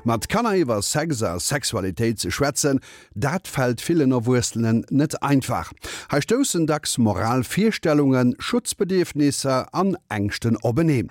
Mat Kanner iwwer Sex a Sexualitéit ze schwätzen, dat fält villen Erwuessenen net einfach. Hei stoussen dacks moral Virstellungen, Schutzbedierfnisser an Ängschten openeen.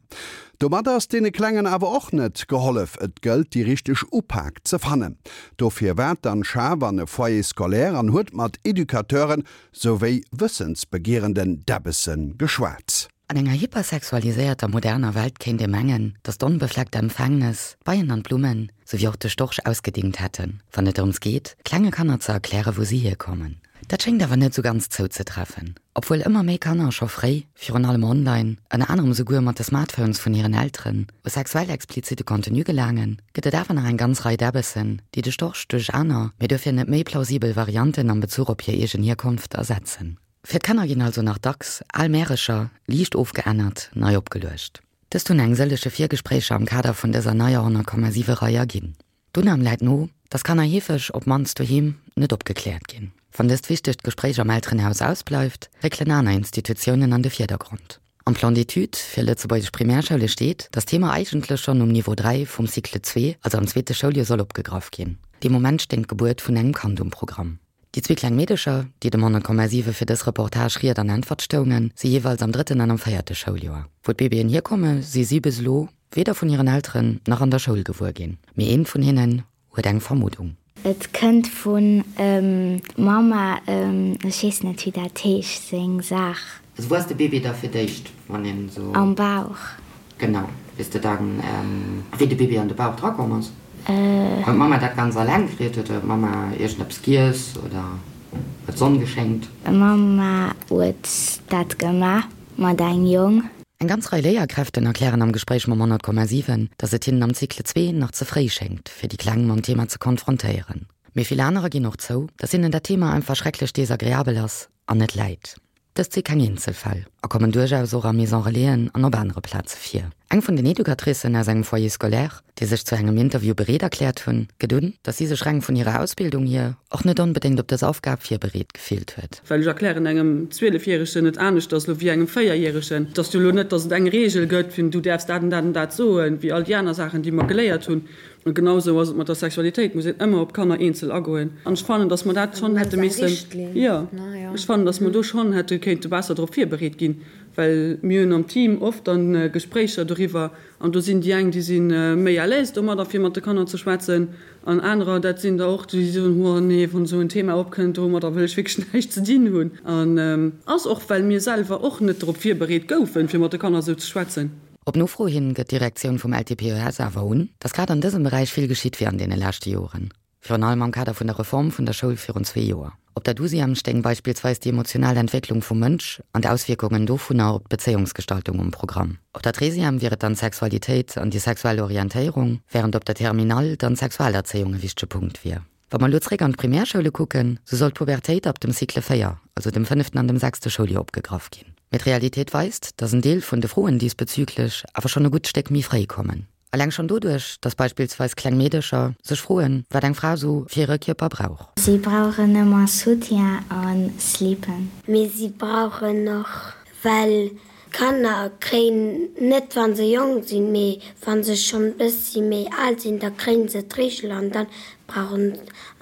Domat ass deene Klengen awer och net gehollef. Et gëllt déi richteg Upak ze fannen. Dofir war d'Anne Schaaf an e Foyer scolaire an huet mat Educateuren souwéi wëssensbegierenden Däbbesse geschwat. An enger hypersexualiséierter moderner Welt kéint ee mengen, datt d'onbefleckte Empfängnes d'Beien an d'Blummen, souwéi och de Storch ausgedingt hätten, wann et drëms geet, klenge Kanner ze erklären, wou si hierkommen. Dat schéngt awer net esou ganz zouzetreffen. Obwuel ëmmer méi Kanner scho fréi, virun allem online, ënner anerem esouguer mat de Smartphones vun hiren Elteren, u sexuell explizite Contenu gelaangen, gëtt et awer nach eng ganz Rei Däbbessen, déi de Storch duerch aner, mee duerfir net méi plausibel Varianten am Bezuch op hir eegen Hierkonft ersetzen. Fir d'Kanner ginn also nach dacks al Märecher, liicht ofgeännert, nei opgeluecht. Dëst hunn eng sëllege Virgespréicher am Kader vun dëser neier 100,7 Rei erginn. D'Unam läit no, dass Kanner heefeg, op d'mannst doheem, net opgekläert ginn. Wann dëst wichtegt Gespréich am Elterenhaus ausbleift, réckelen aner Institutiounen an de Virdergrond. Am Plan d'études fir lëtzebuergesch Primärschoule steet, dass d'Thema eigentlech schonn um Niveau 3 vum Cycle 2, also am zweete Schouljoer, soll opgegraff ginn. Dee Moment stéing d'Gebuert vun engem Kand um Programm. Déi zwee kleng Meedecher, déi dem 100,7 fir dës Reportage Ried an Äntwert stoungen, si jeeweils am drëtten an am véierte Schouljoer. Wou d'Bébéen hierkomme si si bis elo weder vun hiren Elteren nach an der Schoul gewuer ginn. Mee eent vun hinnen huet eng Vermuddung. Et kënnt vun Mama, ech weess net wéi dat heescht, seng Saach. Also wou ass de Bébé da fir d'éischt, wann een esou. Am Bauch. Genau. Weess de dann, wéi de Bébé an de Bauch drakomm ass? Huet d'Mamma dat ganz alleng kritt? Huet d'Mamma iergendeppes giess oder huet d'Sonn geschéngt? D'Mamma huet dat gemaach mat engem Jong. Eng ganz Rei Léierkräften erklären am Gespréich mam 100,7, datt et hinnen am Cycle 2 nach ze fréi schéngt, fir déi Kleng mam Thema ze konfrontéieren. Mee vill anerer ginn och zou, datt hinnen dat Thema einfach schrecklech desagreabel ass an net läit. Dëst si keng Eenzelfäll a kommen duerchaus och a Maison Relaisen an op anere Plaze vir. Eng vun den Educatricen aus engem Foyer scolaire, déi sech zu engem Interview bereet erkläert hunn, gëtt un, datt si sech reng vun hirer Ausbildung hier och net onbedéngt op dës Aufgab virbereet gefillt huet. Well ech erklären engem Zwielefjäregen et aneschters elo wéi engem Véierjäregen. Et ass jo elo net, datt et eng Reegel gëtt, vun du däerfs dat an dat an dat soen, wéi all déi aner Saachen, déi mer geléiert hunn. An genau esou ass et mat der Sexualitéit, muss een ëmmer op d'Kanner eenzel agoen. An ech fannen, datt mer dat schonn hätte missen, jo, ech fannen, datt mer do schonn hätte kéinte besser drop virbereet ginn, well mir hunn am Team oft dann Gespréicher doriwwer an do sinn déi eng, déi si méi à l'aise domadder, fir mat de Kanner ze schwätzen, an anerer, dat sinn der och, déi soen, oh nee, wann esou en Thema opkënnt, domadder wëll ech wierklech näischt ze dinn hunn. An ass och, well mir selwer och net drop virbereet goufen, fir mat de Kanner esou ze schwätzen. Op Nofro hin gëtt d'Direktioun vum LTPES awer un, datt grad an dësem Beräich vill geschitt wier an deene leschte Joren, virun allem am Kader vun der Reform vun der Schoul virun zwee Joer. Op der Douzième stéing beispillsweis déi emotional Entwécklung vum Mënsch an d'Auswierkungen dovunner op d'Bezéiungsgestaltung um Programm. Op der Treizième wier et dann d'Sexualitéit an déi sexuell Orientéierung, wärend op der Terminale dann d'Sexualerzéiung e wichtege Punkt wier. Wa mer elo zréck an d'Primärschoule kucken, sou soll d'Pubertéit ab dem Cycle 4, also dem fënneften an dem sechste Schouljoer opgegraff ginn. Mee d'Realitéit weist, dass en Deel vun de Froen diesbezüglech awer schonn e gutt Stéck méi fréi kommen. Eleng schonn doduerch, dass beispillsweis kleng Meedecher sech froen, wat eng Fra sou fir hire Kierper brauch. Si brauchen ëmmer Soutien a Slippen. Mee si brauchen och Well Kanner kréien net wann se jonk sinn, mee wann se schonn bëssi méi al sinn, da kréien se d'Reegel an dann brauchen,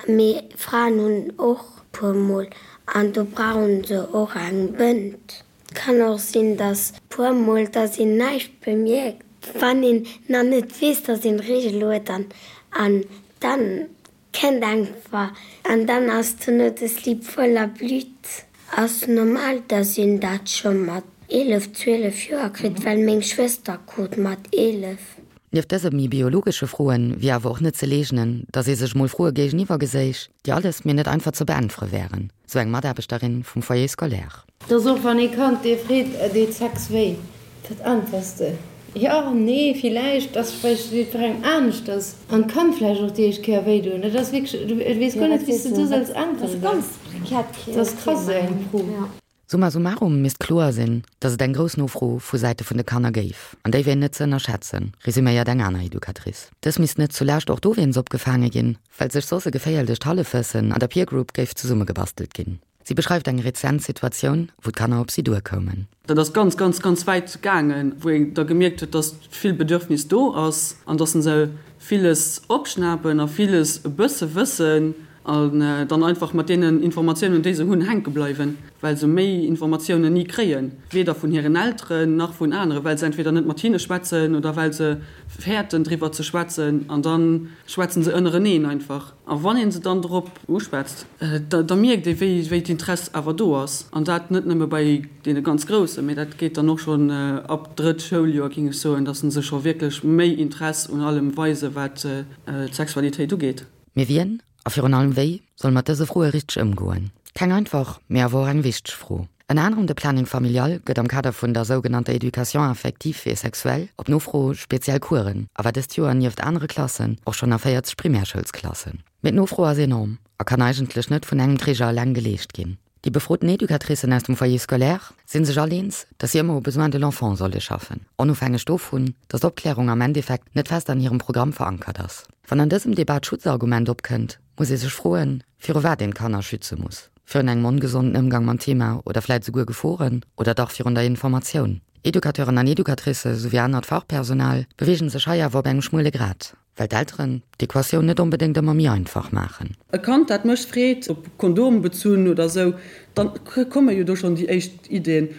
mee Fraen hunn och puer mol an do brauchen se och eng Bënd. Kann och sinn, dass puer mol, dass een näischt bemierkt, wann een nach net weess, dass een d'Reegel huet an an dann Kennt einfach an dann ass dono de Slip voller Blut. Ass normal dass een dat scho mat 11, 12 Joer kritt, well meng Schwëster krut mat 11. Nieft dëse méi biologesche Froen wier awer och net ze leegnen, datt ee sech mol Froe géigeniwwer geséich, déi alles mee net einfach ze beäntwere wären, sou eng Mataarbechterin vum Foyer scolaire. Dass och wann ee Kand dee freet, Deet Sex wéi? Wat äntwers de? Jo, nee, villäicht, ass vläicht jiddwerengem aneschters an kann vläicht och déi éischt Kéier wéi doen. Dat ass wierklech, du weess guer net, wéi s de do solls äntweren. Dat ass krass, esou eng Fro. Summa summarum misst kloer sinn, datt et eng grouss Nofro vu Säite vun de Kanner géif, an déi wier net ze ënnerschätzen, resuméiert eng aner Educatrice. Dës misst net zulescht och dowéinst opgefaange ginn, well sech soss e geféierlecht Hallefwëssen an der Peer Group géif zesummegebastelt ginn. Si beschreift eng rezent Situatioun, wou d'Kanner op si duerkoumen. Dat ass ganz, ganz, ganz wäit gaangen, wou een da gemierkt huet, dass vill Bedürfnis do ass an dass se villes opschnapen a villes e bësse wëssen an dann einfach mat deenen Informatiounen, déi se hunn, hänke bleiwen, well se méi Informatiounen ni kréien, weder vun hiren Elteren nach vun aneren, well se entweder net mat hinne schwätzen oder well se fäerten driwwer ze schwätzen an da schwätzen se ënnereneen einfach. A wann ee se dann drop uschwätzt, da mierkt ee wéi d'Interess awer do ass. An dat net nëmme bei deene ganz Groussen, mee dat geet dann och schonn ab drëtt Schouljoer, géing ech soen, datt se scho wierklech méi Interess un allem weisen, wat d'Sexualitéit ugeet. Mee wien, a virun allem wéi, soll mat dëse Froe richteg ëmgoen? Keng einfach, mee awer och eng wichteg Fro. Ënner anerem de Planning familial gëtt am Kader vun der sougenannter Éducation affective et sexuelle op Nofro speziell Coursen a war dëst Joer nieft anere Klassen och schonn a 40 Primärschoulsklassen. Mee d'Nofro ass enorm a kann eigentlech net vun engem Träger eleng geleescht ginn. Déi befroten Educatricen aus dem Foyer scolaire si sech all eens, dass si ëmmer au besoin de l'enfant solle schaffen, onofhängeg dovun, dass d'Opklärung am Endeffekt net fest an hirem Programm verankert ass. Wann an dësem Debat d'Schutzargument opkënnt, muss ee sech froen, viru wat een d'Kanner schütze muss. Virun engem ongesonden Ëmgang mam Thema oder vläit esouguer Geforen oder dach virun der Informatioun? Educateuren an Educatricë souwéi anert Fachpersonal beweegen sech hei awer op engem schmuele Grat, well d'Elteren d'Equatioun net onbedéngt ëmmer méi einfach maachen. E Kand, dat mech freet, op Kondom bezunn oder esou, da komme jo do schonn déi éischt Iddien.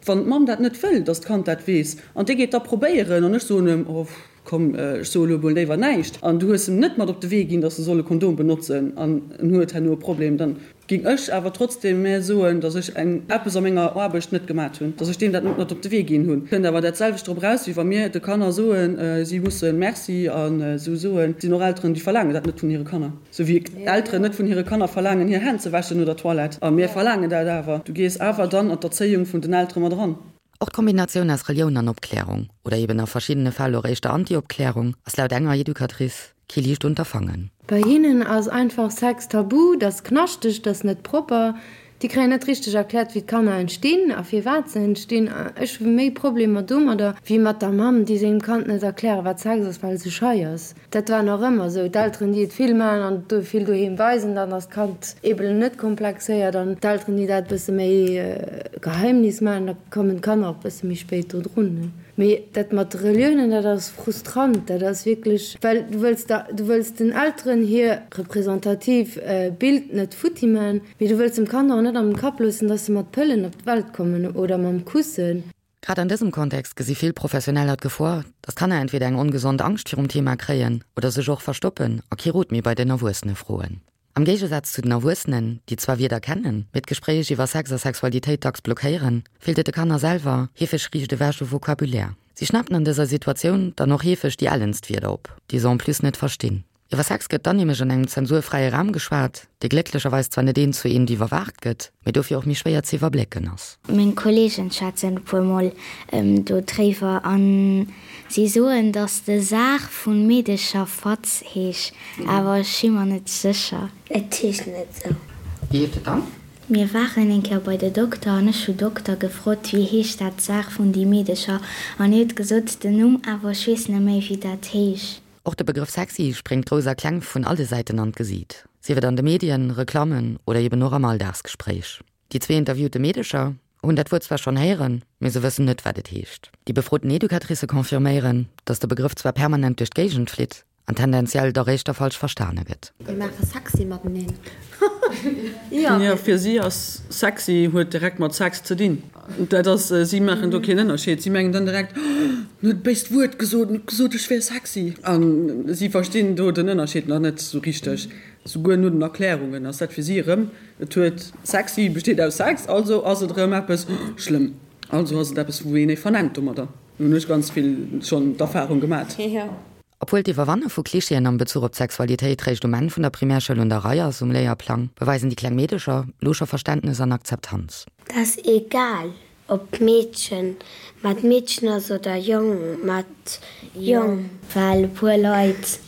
Wann d'Mamm dat net wëll, datt d'Kand dat weess, an dee geet da probéieren an ech soen em, oh, Komm, ech soe lo emol léiwer näischt, an du hues em net mat op de Wee ginn, datt e soll e Kondom benotzen an en huet herno e Problem, dann ging ech awer trotzdem mä soen, datt ech eng eppes a menger Aarbecht net gemat hunn, datt ech deem dat net mat op de Wee ginn hunn. Kënnt awer dat selwecht drop eraus, wéi wa mir de Kanner soen, si musse Merci an esou soen. Et sinn och Elteren, déi verlaangen dat net vun hire Kanner, esou wéi Elteren net vun hire Kanner verlaangen, hir Hänn ze wäschen no der Toilette. A mir verlaangen dat awer. Du gees awer dann an d'Erzéiung vun den Eltere mat eran. Och d'Kombinatioun aus Relioun an Opklärung, oder eben a verschiddene Fäll och éischter Anti-Opklärung, ass laut enger Educatrice kee liicht Unterfangen. Bei hinnen ass einfach Sex tabu, dat ass knaschteg, dat ass net propper. Déi kréien net richteg erkläert, wéi d'Kanner entstinn a firwat se entstinn. Ech hu méi Problemer domadder, wéi mat der Mamm, déi sengem Kand net erkläre wat Sex ass, well se schei ass. Dat war nach ëmmer esou, d'Elteren déi et vill maachen an et vill doheem weisen, dann ass d'Kand eebel net komplexéiert an d'Elteren déi dat e bësse méi Geheimnis maachen, da kommen d'Kanner och e bësse méi spéit do drun. Mee dat mat de Reliounen, dat ass frustrant, dat ass wierklech, well du wëlls der, du wëlls den Elteren hir representativ Bild net futti maachen, mee du wëlls dem Kand och net an den Kapp loossen, dass se mat Pëllen op d'Welt kommen oder mam Kussen. Grad an dësem Kontext gesi vill Professioneller d'Gefor, datt Kanner entweder eng ongesond Angscht virum Thema kréien oder sech och verstoppen a kee Rot méi bei den Erwuessene froen. Am Géigesaz zu den Erwuessenen, déi zwar Wierder kennen, mee d'Gespréich iwwer Sex a Sexualitéit dacks blockéieren, feelt et de Kanner selwer heefeg riicht ewech u Vocabulaire. Si schnappen an dëser Situatioun dann och heefeg déi ellenst Wierder op, déi se en plus net verstinn. Iwwer Sex gëtt dann nämlech an engem zensurfräie Raum geschwat, dee glécklecherweis zwar net eent zu eent iwwerwaacht gëtt, mee dofir och méi schwéier ze iwwerblécken ass. Meng Kolleegen schwätzen e puer mol do dréiwer an si soen dass de Saach vun Meedecher Fatz heesch, awer ech si mer net sécher. Et heescht net sou. Wéi heescht et dann? Mir waren eng Kéier bei de Dokter an ech hu Dokter gefrot wéi heescht dat Saach vun déi Meedecher an hie huet gesot den Numm awer ech weess net méi wéi dat heesch. Och de Begrëff sexy spréngt Grouss a Kleng vun alle Säiten an d'Gesiit, sief et an de Medien, Reklammen oder eben och am Alldagsgespréich. Déi zwee interviewte Meedecher hunn dat Wuert zwar schonn héieren, mee se wëssen net, wat et heescht. Déi befroten Educatricë confirméieren, datt de Begrëff zwar permanent duerch d'Géigend flitt an tendenziell dach éischter falsch verstane gëtt. Mir maache sexy mateneen. Jo, fir si ass sexy huet direkt mat Sex ze dinn. Dat ass, si maachen do keen Ënnerscheed. Si mengen dann direkt, Oh, en huet e béist Wuert gesot, en huet gesot, ech wär sexy. A si verstinn do den Ënnerscheed nach net esou richteg. Souguer no den Erklärungen ass dat fir si erëm, et huet, sexy besteet aus Sex, also ass et erëm eppes schlëmm, also ass et eppes, wou een ee vernennt domadder. Do hunn ech ganz vill schonn d'Erfarung gemat. Obwuel d'Iwwerwanne vu Klischeeën am Bezuch op d'Sexualitéit réischt um Enn vun der Primärschoul un der Rei ass um Léierplang, beweisen déi kleng Meedecher lo scho Verständnes an Akzeptanz. 't ass egal ob Meedchen mat Meedchen ass oder Jong mat Jong. Well e puer Leit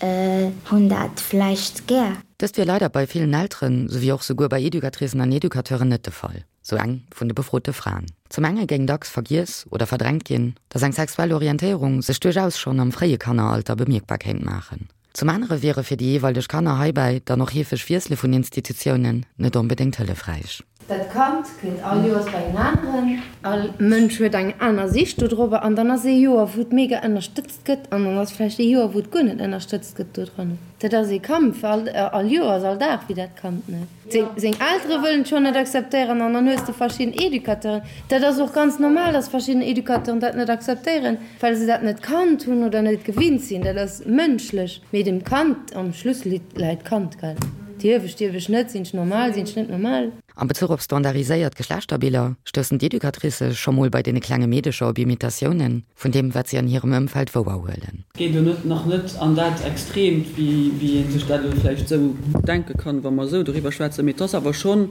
hunn dat vläicht gär. Dëst wier leider bei villen Elteren, souwéi och souguer bei Educatricen an Educateuren net de Fall, sou eng vun de befrote Fraen. Zum enge géing dacks vergiess oder verdrängt ginn, datt eng sexuell Orientéierung sech duerchaus schonn am fréie Kanneralter bemierkbar kéint maachen. Zum anere wiere fir déi jeeweileg Kanner heibäi dann och heefeg Wiessele vun Institutiounen net onbedéngt hëllefräich. Dat Kand kënnt all Joers bei en aneren. All Mënsch huet eng aner Sicht dodrobber an dann ass ee Joer, wou et mega ënnerstëtzt gëtt an dann ass vläicht ee Joer, wou et guer net ënnerstëtzt gëtt dodran. Dat ass ee Kampf all, all Joers, all Dag fir dat Kand, ne? Seng, seng Eltere wëllen et schonn net akzeptéieren an dann hues de verschidden Educateuren, dat ass och ganz normal, dass verschidden Educateuren dat net akzeptéieren, well se dat net kannt hunn oder net gewinnt sinn. Dat ass mënschlech. Mee dem Kand, am Schluss läit d'Kand, gell? Dierf ech, dierf ech net, sinn ech normal, sinn ech net normal? Am Bezuch op standardiséiert Geschlechterbiller stoussen d'Educatricë scho mol bei deene klenge Meedecher op Imitatiounen vun deem, wat si an hirem Ëmfeld wouerhuelen. Geet elo net, nach net an dat Extreemt, wéi ee sech dat elo vläicht esou denke kann, wa mer esou doriwwer schwätzen, mee et ass awer schonn,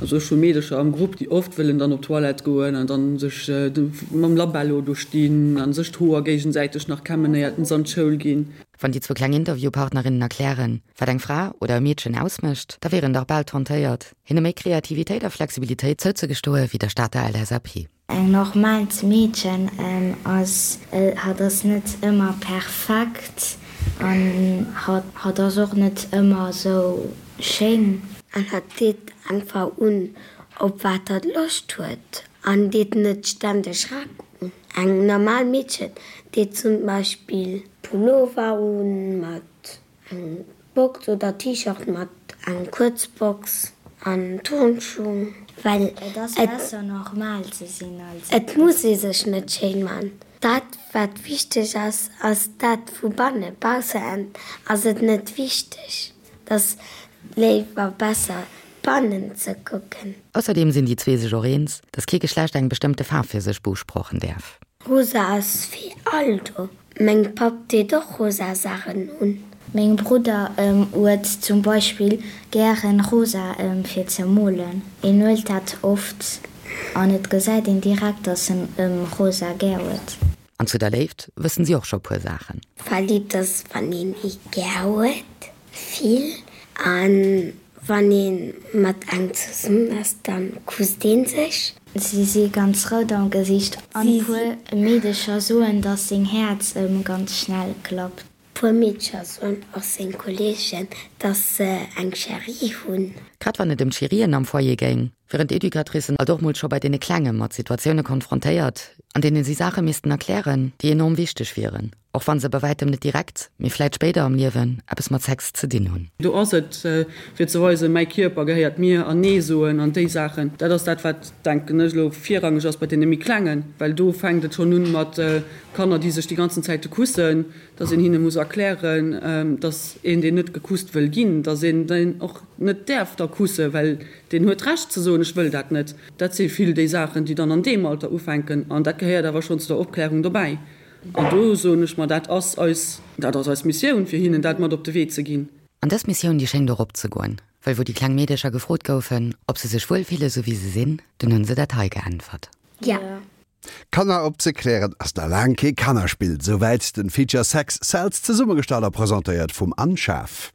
also ech hu Meedecher am Grupp, déi oft wëllen dann op d'Toilette goen an dann sech mam Labello do stinn a sech d'Hoer géigesäiteg nach kämmen, éiert se an d'Schoul ginn. Wann déi zwou kleng Interviewpartnerinnen erklären, wat eng Fra oder e Meedchen ausmécht, da wier een dach bal tentéiert, hinne méi Kreativitéit a Flexibilitéit zouzegestoe wéi der Stater LSAP. Eng normaalt Meedchen ass, hatt ass net ëmmer perfekt an hatt ass och net ëmmer esou schéin. An hatt deet einfach un, op wat hatt Loscht huet an deet net ständeg Rack un. Eng normal Meedchen deet zum Beispill Pullover un mat eng Box oder T-Shirt mat eng kuerz Box an Turnschuh. Well Et ass besser normal ze sinn als. Et muss ee sech net schéin man. Dat wat wichteg ass, ass dat vu banne. Baussen ass et net wichteg. Et ass léiwer besser bannen ze kucken. Ausserdeem sinn déi zwee sech och eens, dass kee Geschlecht eng bestëmmte Faarf fir sech beusprochen däerf. Rosa ass fir all do. Meng Papp deet och rosa Saachen un. Meng Brudder huet zum Beispill gären rosa fir ze molen. En huelt dat oft an et gesäit een direkt dass en rosa gär huet. An zu der Léift wëssen si och scho puer Saachen. Verliebt ass wann een ee gär huet, vill, an wann ee mat engem zesummen ass, dann kusst een sech. Si si ganz rout am Gesiicht an puer Meedecher soen dass seng Häerz ganz schnell klappt. Puer Meedcher soen och seng Kolleegen, dass se eng Chérie hunn. Grad wann et ëm d'Chérien am Foyer géing, wieren d'Educatricen alt och mol scho bei deene Klenge mat Situatioune konfrontéiert, an deene si Saache missten erklären, déi enorm wichteg wieren, och wa se bei wäitem net direkt, mee vläit spéider am Liewen eppes mat Sex ze dinn hunn. Do ass et, fir ze weisen, mäi Kierper gehéiert mir an Nee soen an déi Saachen. Dat ass dat, wat, denken ech elo, virrangeg ass bei deene méi Klengen, well do fänkt et schonn un mat Kanner, déi sech déi ganzen Zäite kussen, dass een hinne muss erklären, dass een, deen net gekusst wëll ginn, dass een deen och net däerf da kussen, well deen huet d'Recht ze soen, ech wëll dat net. Dat si vill déi Saachen, déi dann an deem Alter ufänken an dat gehéiert awer schonn zu der Opklärung dobäi. An do soen ech mer, dat ass eis, dat ass eis Missioun, fir hinnen dat mat op de Wee ze ginn. An dës Missioun, déi schéngt och opzegoen, well wou déi kleng Meedecher gefrot goufen, ob se sech wuel fille sou wéi se sinn, dunn hunn se dat hei geäntwert. Jo. Kanner opzeklären ass na laang kee Kannerspill. Souwäit den Feature Sex Sells, zesummegestallt a presentéiert vum Anne Schaaf.